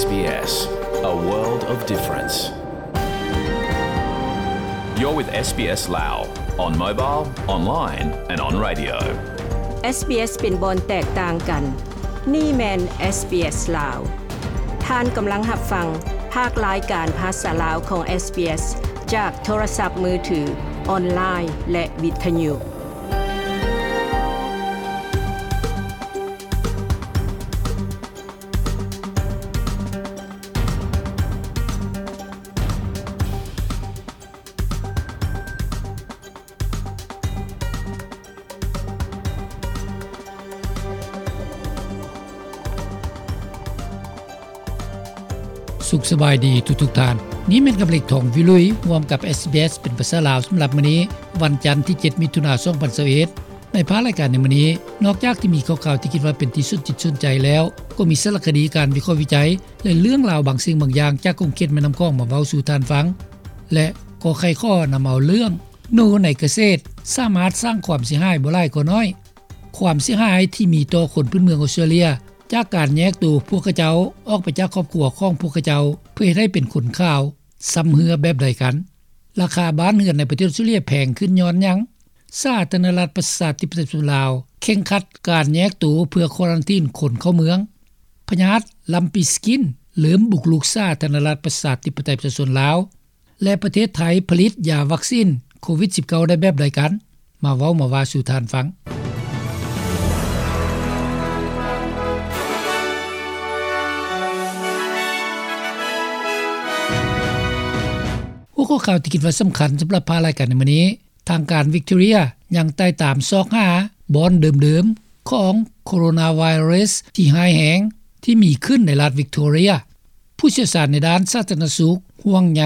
SBS, a world of difference. You're with SBS Lao on mobile, online and on radio. SBS ເປັນບ່ອນແຕກຕ່າງກັນ. ນີ້ແມ່ນ SBS ລາວ. ທ່ານກຳລັງຮັບຟັງພາກລາຍການພາສາລາວຂອງ SBS ຈາກໂທລະສັບມືຖື, ອອນລາຍ ແລະ ວິທະຍຸ. ສຸກສະບາຍດີທຸກໆທ່ານ. ນີ້ແມ່ນກຳເລັກ ທອງວິລຸຍ ຮ່ວມກັບ SBS ເປັນພາສາລາວ ສຳລັບມື້ນີ້ ວັນຈັນທີເຈັດ ມິຖຸນາ ສອງພັນຊາວເອັດ. ໃນພາກລາຍການໃນມື້ນີ້ ນອກຈາກທີ່ມີຂ່າວໆທີ່ຄິດວ່າເປັນທີ່ສົນຈິດສົນໃຈແລ້ວ, ກໍມີສາລະຄະດີ, ການວິເຄາະວິໄຈ ແລະ ເລື່ອງລາວບາງສິ່ງບາງຢ່າງຈາກຂົງເຂດແມ່ນ້ຳຂອງມາເວົ້າສູ່ທ່ານຟັງ ແລະ ກໍໄຂຂໍ້ນຳເອົາເລື່ອງ ໜູໃນກະເສດສາມາດສ້າງຄວາມເສຍຫາຍບໍ່ຫຼາຍກໍໜ້ອຍ. ຄວາມເສຍຫາຍທີ່ມີຕໍ່ຄົນພື້ນເມືອງອອສເຕຣເລຍ ຈາກການແຍກໂຕພວກຂະເຈົ້າອອກໄປຈາກຄອບຄົວຂອງພວກຂະເຈົ້າ ເພື່ອເຮັດໃຫ້ເປັນຄົນຂາວ ຊຳເຮື້ອແບບໃດກັນ? ລາຄາບ້ານເຮືອນໃນປະເທດອອສເຕຣເລຍແພງຂຶ້ນຍ້ອນຫຍັງ? ສາທາລະນະລັດປະຊາທິປະໄຕປະຊາຊົນລາວ ເຄັ່ງຄັດການແຍກໂຕເພື່ອຄວາຣັນທີນຄົນເຂົ້າເມືອງ. ພະຍາດລຳປີສະກິນເລີ່ມບຸກລຸກສາທາລະນະລັດປະຊາທິປະໄຕປະຊາຊົນລາວ ແລະ ປະເທດໄທຜະລິດຢາວັກຊີນໂຄວິດສິບເກົ້າ ໄດ້ແບບໃດກັນ? ມາເວົ້າມາວ່າສູ່ທ່ານຟັງ. ຫົວຂໍ້ຂ່າວທີ່ຄິດວ່າສຳຄັນສຳລັບພາກລາຍການໃນມື້ນີ້, ທາງການວິກຕໍເຣຍຍັງໄຕ່ຕາມຊອກຫາບ່ອນເດີມໆຂອງໂຄໂຣນາໄວຣັສທີ່ຮ້າຍແຮງທີ່ມີຂຶ້ນໃນລັດວິກຕໍເຣຍ. ຜູ້ຊ່ຽວຊານໃນດ້ານສາທາລະນະສຸກຫ່ວງໃຍ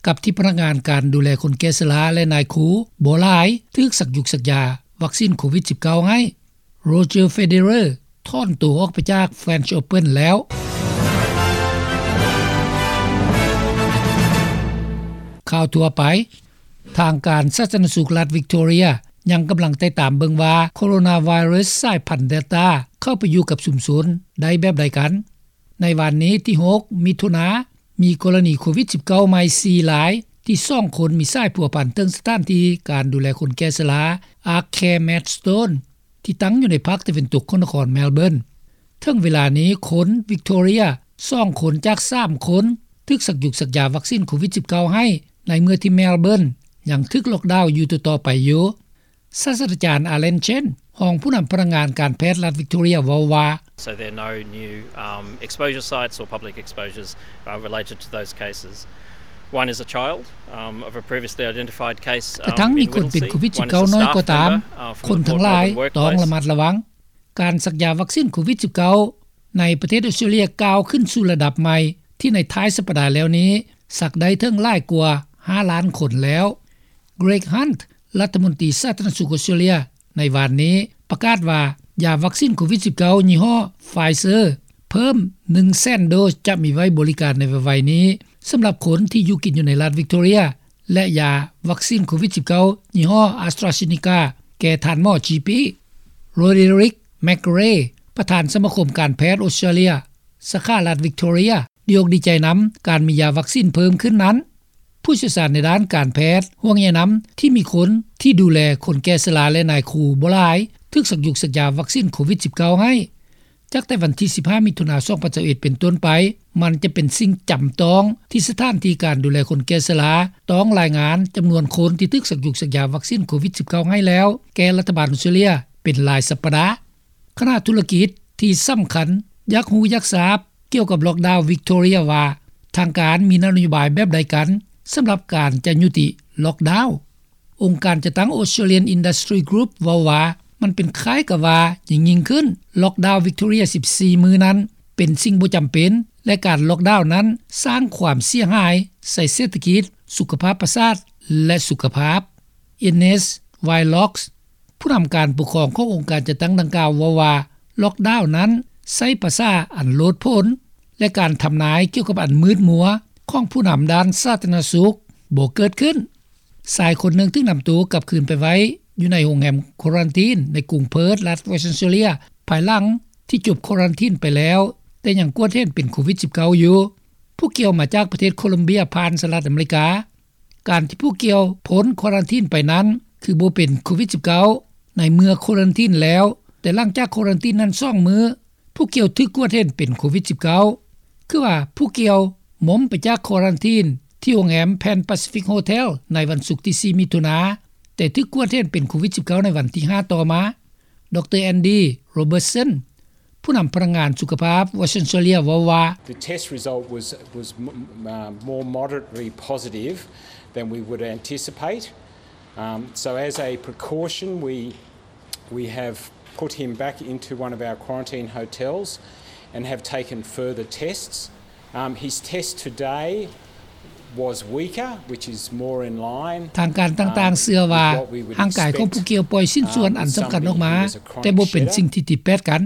ກັບທີ່ພະນັກງານການດູແລຄົນແກ່ຊະລາ ແລະ ນາຍຄູບໍ່ຫຼາຍຖືກສັກຢູກສັກຢາວັກຊີນໂຄວິດສິບເກົ້າໃຫ້. ໂຣເຈີ ເຟເດເຣ ຖອນໂຕອອກໄປຈາກ French Open ແລ້ວ. ຂ່າວທົ່ວໄປ. ທາງການສາທາລະນະສຸກລັດວິກຕໍເຣຍຍັງກຳລັງໄຕ່ຕາມເບິ່ງວ່າໂຄໂຣນາໄວຣັສສາຍພັນເດລຕາເຂົ້າໄປຢູ່ກັບຊຸມຊົນໄດ້ແບບໃດກັນ. ໃນວານນີ້ທີຫົກ ມິຖຸນາ ມີກໍລະນີໂຄວິດສິບເກົ້າໃໝ່ສີ່ລາຍ ທີ່ສອງຄົນມີສາຍພົວພັນເຖິງສະຖານທີ່ການດູແລຄົນແກ່ຊະລາ Ark Care Maidstone ທີ່ຕັ້ງຢູ່ໃນພາກຕາເວັນຕົກຂອງນະຄອນ Melbourne. ເຖິງເວລານີ້ຄົນວິກຕໍເຣຍສອງຄົນຈາກສາມຄົນຖືກສັກຢູກສັກຢາວັກຊີນໂຄວິດສິບເກົ້າໃຫ້ ໃນເມື່ອທີ່ Melbourne ຍັງຖືກລ໊ອກດາວຢູ່ຕໍ່ໆໄປຢູ່. ສາດສະດາຈານ Alan Chen ຮອງຜູ້ນຳພະນັກງານການແພດລັດວິກຕໍເຣຍເວົ້າວ່າ So there are no new, um, exposure sites or public exposures, uh, related to those cases. One is a child, um, of a previously identified case, um, ກະທັ່ງມີຄົນເປັນໂຄວິດສິບເກົ້ານ້ອຍກໍຕາມ, ຄົນທັງຫຼາຍຕ້ອງລະມັດລະວັງ. ການສັກຢາວັກຊີນໂຄວິດສິບເກົ້າໃນປະເທດອອສເຕຣເລຍກ້າວຂຶ້ນສູ່ລະດັບໃໝ່ ທີ່ໃນທ້າຍສັບປະດາແລ້ວນີ້ ສັກໄດ້ເຖິງຫຼາຍກວ່າຫ້າລ້ານຄົນແລ້ວ. Greg Hunt ລັດຖະມົນຕີສາທາລະນະສຸກອອສເຕຣເລຍ ໃນວານນີ້ປະກາດວ່າ ຢາວັກຊີນໂຄວິດສິບເກົ້າຍີ່ຫໍ້ Pfizer ເພີ່ມໜຶ່ງແສນໂດສ ຈະມີໄວ້ບໍລິການໃນໄວໆນີ້ ສຳລັບຄົນທີ່ຢູ່ກິນຢູ່ໃນລັດວິກຕໍເຣຍ ແລະ ຢາວັກຊີນໂຄວິດສິບເກົ້າຍີ່ຫໍ້ AstraZeneca ແກ່ທ່ານໝໍ ຈີ ປີ. Roderick McRae ປະທານສະມາຄົມການແພດອອສເຕຣເລຍ ສາຂາລັດວິກຕໍເຣຍ ດີອົກດີໃຈນຳການມີຢາວັກຊີນເພີ່ມຂຶ້ນນັ້ນ. ຜູ້ຊ່ຽວຊານໃນດ້ານການແພດຫ່ວງໃຍນຳທີ່ມີຄົນທີ່ດູແລຄົນແກ່ຊະລາ ແລະ ນາຍຄູບໍ່ຫຼາຍຖືກສັກຢູກສັກຢາວັກຊີນໂຄວິດສິບເກົ້າໃຫ້. ຈາກແຕ່ວັນທີສິບຫ້າ ມິຖຸນາ ສອງພັນຊາວເອັດ ເປັນຕົ້ນໄປ, ມັນຈະເປັນສິ່ງຈຳຕ້ອງທີ່ສະຖານທີ່ການດູແລຄົນແກ່ຊະລາຕ້ອງລາຍງານຈຳນວນຄົນທີ່ຖືກສັກຢູກສັກຢາວັກຊີນໂຄວິດສິບເກົ້າໃຫ້ແລ້ວ ແກ່ລັດຖະບານອອສເຕຣເລຍເປັນລາຍສັບປະດາ. ຄະນະທຸລະກິດທີ່ສຳຄັນຢາກຮູ້ຢາກຊາບກ່ຽວກັບລ໊ອກດາວວິກຕໍເຣຍວ່າ ທາງການມີນະໂຍບາຍແບບໃດກັນສຳລັບການຈະຍຸຕິລ໊ອກດາວ. ອົງການຈັດຕັ້ງ Australian Industry Group ເວົ້າວ່າ ມັນເປັນຄ້າຍກັບວ່າຍິ່ງໆຂຶ້ນ, ລ໊ອກດາວວິກຕໍເຣຍສິບສີ່ມື້ນັ້ນເປັນສິ່ງບໍ່ຈຳເປັນ ແລະ ການລ໊ອກດາວນັ້ນສ້າງຄວາມເສຍຫາຍໃສ່ເສດຖະກິດ, ສຸຂະພາບປະສາດ ແລະ ສຸຂະພາບ. Ines Wheelock ຜູ້ນຳການປົກຄອງຂອງອົງການຈັດຕັ້ງດັ່ງກ່າວເວົ້າວ່າ ລ໊ອກດາວນັ້ນໃຊ້ພາສາອັນໂລດໂຜນ ແລະ ການທຳນາຍກ່ຽວກັບອັນມືດມົວຂອງຜູ້ນຳດ້ານສາທາລະນະສຸກບໍ່ເກີດຂຶ້ນ.ຊາຍຄົນໜຶ່ງຖືກນຳໂຕກັບຄືນໄປໄວ້ຢູ່ໃນໂຮງແຮມຄວາຣັນທີນໃນກຸງເພີດ ລັດ Western Australia ພາຍຫຼັງທີ່ຈົບຄວາຣັນທີນໄປແລ້ວ. ຕ່ຍັງກວດເຫັນເປັນໂຄວິດ-19 ຢູ່. ຜູ້ກ່ຽວມາຈາກປະເທດໂຄລັມເບຍ ຜ່ານສະຫະລັດອາເມລິກາ. ການທີ່ຜູ້ກ່ຽວພົ້ນຄວາຣັນທີນໄປນັ້ນ ຄືບໍ່ເປັນໂຄວິດ-19 ໃນເມື່ອຄວາຣັນທີນແລ້ວ, ແຕ່ຫຼັງຈາກຄວາຣັນທີນນັ້ນສອງມື້ ຜູ້ກ່ຽວຖືກກວດເຫັນເປັນໂຄວິດ-19. ຄືວ່າຜູ້ກ່ຽວມົມໄປຈາກຄວາຣັນທີນທີ່ໂຮງແຮມ Pan Pacific Hotel ໃນວັນສຸກທີສີ່ ມິຖຸນາ, ແຕ່ຖືກກວດເຫັນເປັນໂຄວິດ-19 ໃນວັນທີຫ້າຕໍ່ມາ. ດຣ. ແອນດີ ໂຣເບີດສັນ ຜູ້ນຳພະນັກງານສຸຂະພາບ Western Australia ເວົ້າວ່າ The test result was, was m-, uh, more moderately positive than we would anticipate. Um, so as a precaution, we, we have put him back into one of our quarantine hotels and have taken further tests. Um, his test today was weaker, which is more in line, ທາງການຕ່າງໆເຊື່ອວ່າ ຮ່າງກາຍຂອງຜູ້ກ່ຽວປ່ອຍຊິ້ນສ່ວນອັນສຳຄັນອອກມາ, ແຕ່ບໍ່ເປັນສິ່ງທີ່ຕິດແປດກັນ.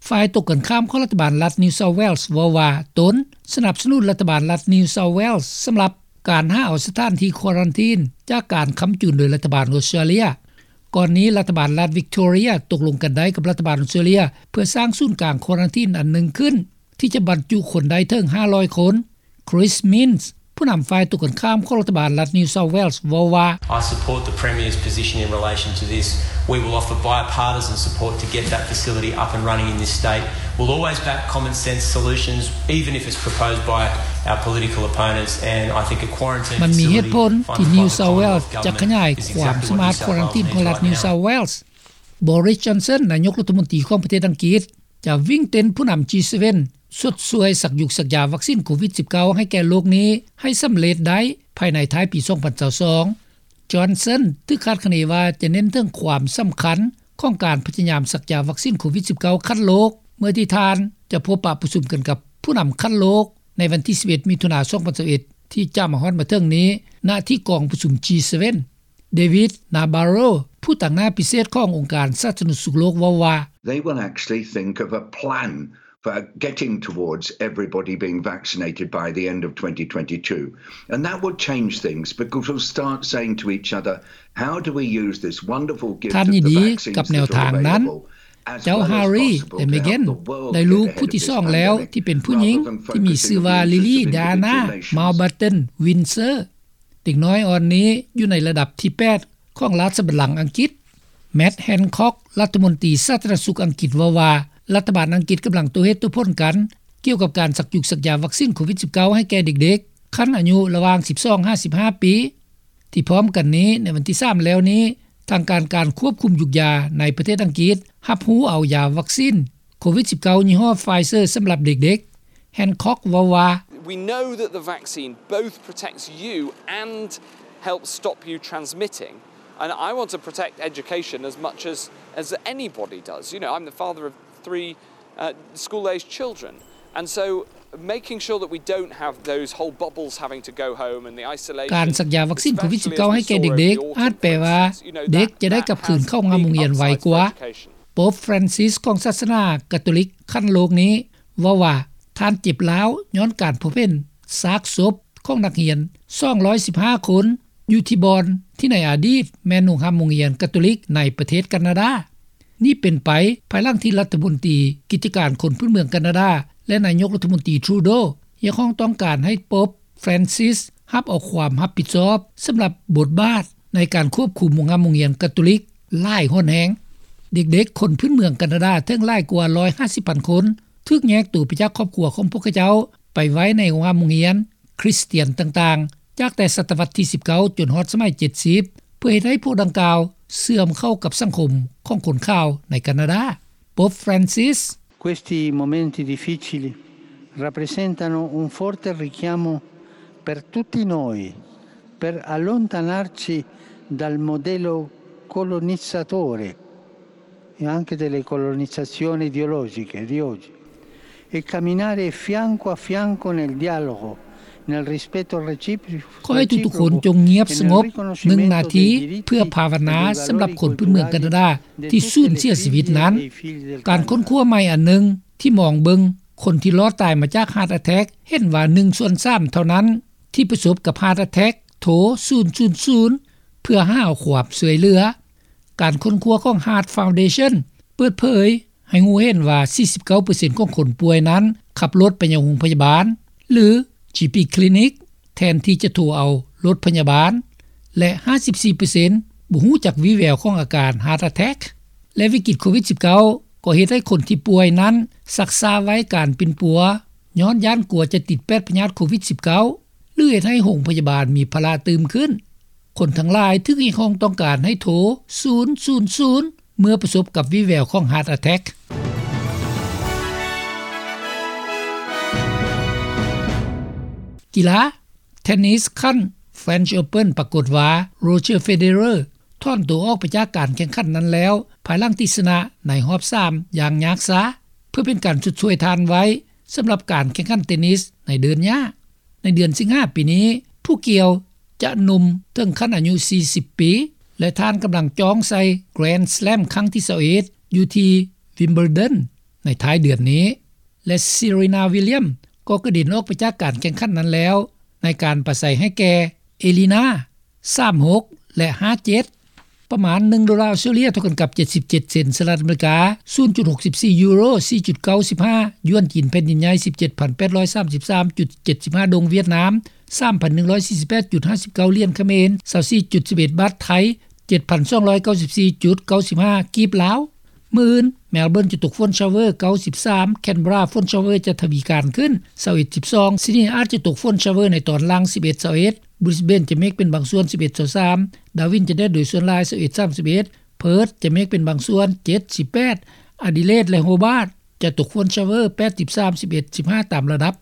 ຝ່າຍຕົງກັນຂ້າມຂອງລັດຖະບານລັດ New South Wales ເວົ້າວ່າ ຕົນສະໜັບສະໜູນລັດຖະບານລັດ New South Wales ສຳລັບການຫາເອົາສະຖານທີ່ຄວາຣັນທີນຈາກການຄ້ຳຈູນໂດຍລັດຖະບານອົດສະຕຣາເລຍ. ກ່ອນນີ້ລັດຖະບານລັດ Victoria ຕົກລົງກັນໄດ້ກັບລັດຖະບານອົດສະຕຣາເລຍ ເພື່ອສ້າງສູນກາງຄວາຣັນທີນອັນໜຶ່ງຂຶ້ນ ທີ່ຈະບັນຈຸຄົນໄດ້ເຖິງຫ້າຮ້ອຍຄົນ. Chris Minns ຜູ້ນຳຝ່າຍຕົງກັນຂ້າມຂອງລັດຖະບານລັດ New South Wales ເວົ້າວ່າ I support the Premier's position in relation to this. We will offer bipartisan support to get that facility up and running in this state. We'll always back common sense solutions, even if it's proposed by our political opponents, and I think a quarantine facility ມັນມີເຫດຜົນທີ່ New South Wales ຈະຂະຫຍາຍຄວາມສາມາດຄວາຣັນທີນຂອງລັດ New South Wales. Boris Johnson ນາຍົກລັດຖະມົນຕີຂອງປະເທດອັງກິດ ຈະວິ່ງເຕັ້ນຜູ້ນຳ G seven ຊົດຊ່ວຍສັກຢຸກສັກຢາວັກຊິນໂຄວິດ-19 ໃຫ້ແກ່ໂລກນີ້ໃຫ້ສຳເລັດໄດ້ພາຍໃນທ້າຍປີສອງພັນຊາວສອງ. Johnson ຖືກຄາດຄະເນວ່າຈະເນັ້ນເຖິງຄວາມສຳຄັນຂອງການພະຍາຍາມສັກຢາວັກຊິນໂຄວິດ-19 ຂັ້ນໂລກ ເມື່ອທີ່ທ່ານຈະພົບປະປະຊຸມກັນກັບຜູ້ນຳຂັ້ນໂລກໃນວັນທີສິບເອັດ ມິຖຸນາ ສອງພັນຊາວເອັດ ທີ່ຈະມາຮອດມາເຖິງນີ້ ນະທີ່ກອງປະຊຸມ G seven. David Nabarro ຜູ້ຕາງໜ້າພິເສດຂອງອົງການສາທາລະນະສຸກໂລກເວົ້າວ່າ They will actually think of a plan for getting towards everybody being vaccinated by the end of twenty twenty-two. And that will change things because we'll start saying to each other, how do we use this wonderful gift of the vaccines that are available, as well as possible to help the world get ahead of this pandemic. ທ່ານຍິນດີກັບແນວທາງນັ້ນ. ເຈົ້າ Harry ແລະ Meghan ໄດ້ລູກຜູ້ທີສອງແລ້ວທີ່ເປັນຜູ້ຍິງ ທີ່ມີຊື່ວ່າ Lily Diana Mountbatten Windsor. ເດັກນ້ອຍອ່ອນນີ້ຢູ່ໃນລະດັບທີແປດຂອງລາຊະບັນລັງອັງກິດ. Matt Hancock ລັດຖະມົນຕີສາທາລະນະສຸກອັງກິດເວົ້າວ່າ ລັດຖະບານອັງກິດກຳລັງໂຕ້ເຫດໂຕ້ຜົນກັນ ກ່ຽວກັບການສັກຢຸກສັກຢາວັກຊິນໂຄວິດ-19 ໃຫ້ແກ່ເດັກໆ ຂັ້ນອາຍຸລະຫວ່າງສິບສອງຫາສິບຫ້າປີ. ທີ່ພ້ອມກັນນີ້ ໃນວັນທີສາມແລ້ວນີ້ ທາງການການຄວບຄຸມຢຸກຢາໃນປະເທດອັງກິດ ຮັບຮູ້ເອົາຢາວັກຊິນໂຄວິດ-19 ຍີ່ຫໍ້ Pfizer ສຳລັບເດັກໆ. Hancock ເວົ້າວ່າ We know that the vaccine both protects you and helps stop you transmitting, and I want to protect education as much as, as anybody does. You know, I'm the father of three, uh, school-aged children, and so making sure that we don't have those whole bubbles having to go home and the isolation. ການສັກຢາວັກຊິນໂຄວິດ-19 ໃຫ້ແກ່ເດັກໆ ອາດແປວ່າເດັກຈະໄດ້ກັບຄືນເຂົ້າໂຮງຮຽນໄວກວ່າ. ໂປບ Francis ຂອງສາສະໜາກາໂຕລິກຂັ້ນໂລກນີ້ເວົ້າວ່າ ທ່ານເຈັບລ້າວຍ້ອນການພົບເຫັນຊາກສົບຂອງນັກຮຽນສອງຮ້ອຍສິບຫ້າຄົນ ຢູ່ທີ່ບ່ອນທີ່ໃນອະດີດແມ່ນໂຮງຮ່ຳໂຮງຮຽນກາໂຕລິກໃນປະເທດການາດາ. ນີ້ເປັນໄປພາຍຫຼັງທີ່ລັດຖະມົນຕີກິດຈະການຄົນພື້ນເມືອງການາດາ ແລະ ນາຍົກລັດຖະມົນຕີ Trudeau ຮຽກຮ້ອງຕ້ອງການໃຫ້ໂປບ Francis ຮັບເອົາຄວາມຮັບຜິດຊອບສຳລັບບົດບາດໃນການຄວບຄຸມໂຮງຮ່ຳໂຮງຮຽນກາໂຕລິກຫຼາຍຮ້ອນແຮງ. ເດັກໆຄົນພື້ນເມືອງການາດາເຖິງຫຼາຍກວ່າຮ້ອຍຫ້າສິບພັນຄົນ ຖືກແຍກໂຕໄປຈາກຄອບຄົວຂອງພວກເຂົາເຈົ້າ ໄປໄວ້ໃນໂຮງຮ່ຳໂຮງຮຽນຄຣິສຕຽນຕ່າງໆ ຈາກແຕ່ສະຕະວັດທີສິບເກົ້າຈົນຮອດສະໄໝເຈັດສິບ ເພື່ອເຮັດໃຫ້ພວກດັ່ງກ່າວເຊື່ອມເຂົ້າກັບສັງຄົມຂອງຄົນຂາວໃນການາດາ. ໂປບ Francis. Questi momenti difficili rappresentano un forte richiamo per tutti noi, per allontanarci dal modello colonizzatore e anche delle colonizzazioni ideologiche di oggi e camminare fianco a fianco nel dialogo, nel rispetto reciproco ຂໍໃຫ້ທຸກໆຄົນຈົ່ງງຽບສະຫງົບໜຶ່ງນາທີ ເພື່ອພາວະນາສຳລັບຄົນພື້ນເມືອງການາດາທີ່ສູນເສຍຊີວິດນັ້ນ. ການຄົ້ນຄວ້າໃໝ່ອັນໜຶ່ງທີ່ມອງເບິ່ງຄົນທີ່ລອດຕາຍມາຈາກ heart attack ເຫັນວ່າໜຶ່ງສ່ວນສາມເທົ່ານັ້ນທີ່ປະສົບກັບ heart attack ໂທສູນສູນສູນ ເພື່ອຫາຄວາມຊ່ວຍເຫຼືອ. ການຄົ້ນຄວ້າຂອງ Heart Foundation ເປີດເຜີຍ ໃຫ້ຮູ້ເຫັນວ່າ 49% ຂອງຄົນປ່ວຍນັ້ນ ຂັບລົດໄປຍັງໂຮງພະຍາບານ ຫຼື GP Clinic ແທນທີ່ຈະໂທເອົາລົດພະຍາບານ ແລະ 54% ບໍ່ຮູ້ຈັກວີແວວຂອງອາການ Heart Attack. ແລະ ວິກິດໂຄວິດ-19 ກໍເຮັດໃຫ້ຄົນທີ່ປ່ວຍນັ້ນ ຊັກຊ້າໄວ້ການປິ່ນປົວ ຍ້ອນຢ້ານກົວຈະຕິດແປດພະຍາດໂຄວິດ-19 ຫຼື ເຮັດໃຫ້ໂຮງພະຍາບານມີພາລະຕື່ມຂຶ້ນ. ຄົນທັງຫຼາຍຖືກຮຽກຮ້ອງຕ້ອງການໃຫ້ໂທ ສູນສູນສູນ ເມື່ອປະສົບກັບວີແວວຂອງ Heart Attack. ກິລາ ເທນນິສຂັ້ນ French Open ປາກົດວ່າ Roger Federer ຖອນໂຕອອກໄປຈາກການແຂ່ງຂັນນັ້ນແລ້ວ ພາຍຫຼັງທີ່ຊະນະໃນຮອບສາມຢ່າງຍາກຊາ ເພື່ອເປັນການຊົດຊ່ວຍທ່ານໄວ້ ສຳລັບການແຂ່ງຂັນເທນນິສໃນເດີນຫຍ້າ. ໃນເດືອນສິງຫາປີນີ້ ຜູ້ກ່ຽວຈະໜຸ່ມເຖິງຂັ້ນອາຍຸ 40 ປີ ແລະ ທ່ານກຳລັງຈ້ອງໃສ່ Grand Slam ຄັ້ງທີ 21 ຢູ່ທີ່ Wimbledon ໃນທ້າຍເດືອນນີ້ ແລະ Serena Williams ກໍກະເດັນອອກໄປຈາກການແຂ່ງຂັນນັ້ນແລ້ວ ໃນການປາໄສໃຫ້ແກ່ Elina ສາມຫົກ ແລະ ຫ້າເຈັດ ປະມານ ໜຶ່ງໂດລາອອສເຕຣເລັຽ ເທົ່າກັນກັບ 77 ເຊັນສະຫະລັດອາເມລິກາ, 0.64 ຢູໂຣ, 4.95 ຢວນຈີນແຜ່ນດິນໃຫຍ່, 17,833.75 ໂດງຫວຽດນາມ, 3,148.59 ຫຼຽນຂະເໝນ, 24.11 ບາດໄທ, 7,294.95 ກີບລາວ. ມື້ອື່ນ Melbourne ຈະຕົກຝົນ shower 93, Canberra ຝົນ shower ຈະທະວີການຂຶ້ນ 21-12, Sydney ອາດຈະຕົກຝົນ shower ໃນຕອນຫຼັງ 11-21, Brisbane ຈະເມກເປັນບາງສ່ວນ 11-23, Darwin ຈະແດດໂດຍສ່ວນຫຼາຍ 21-31, Perth ຈະເມກເປັນບາງສ່ວນ 7-18, Adelaide ແລະ Hobart ຈະຕົກຝົນ shower 8-13, 11-15 ຕາມລະດັບ.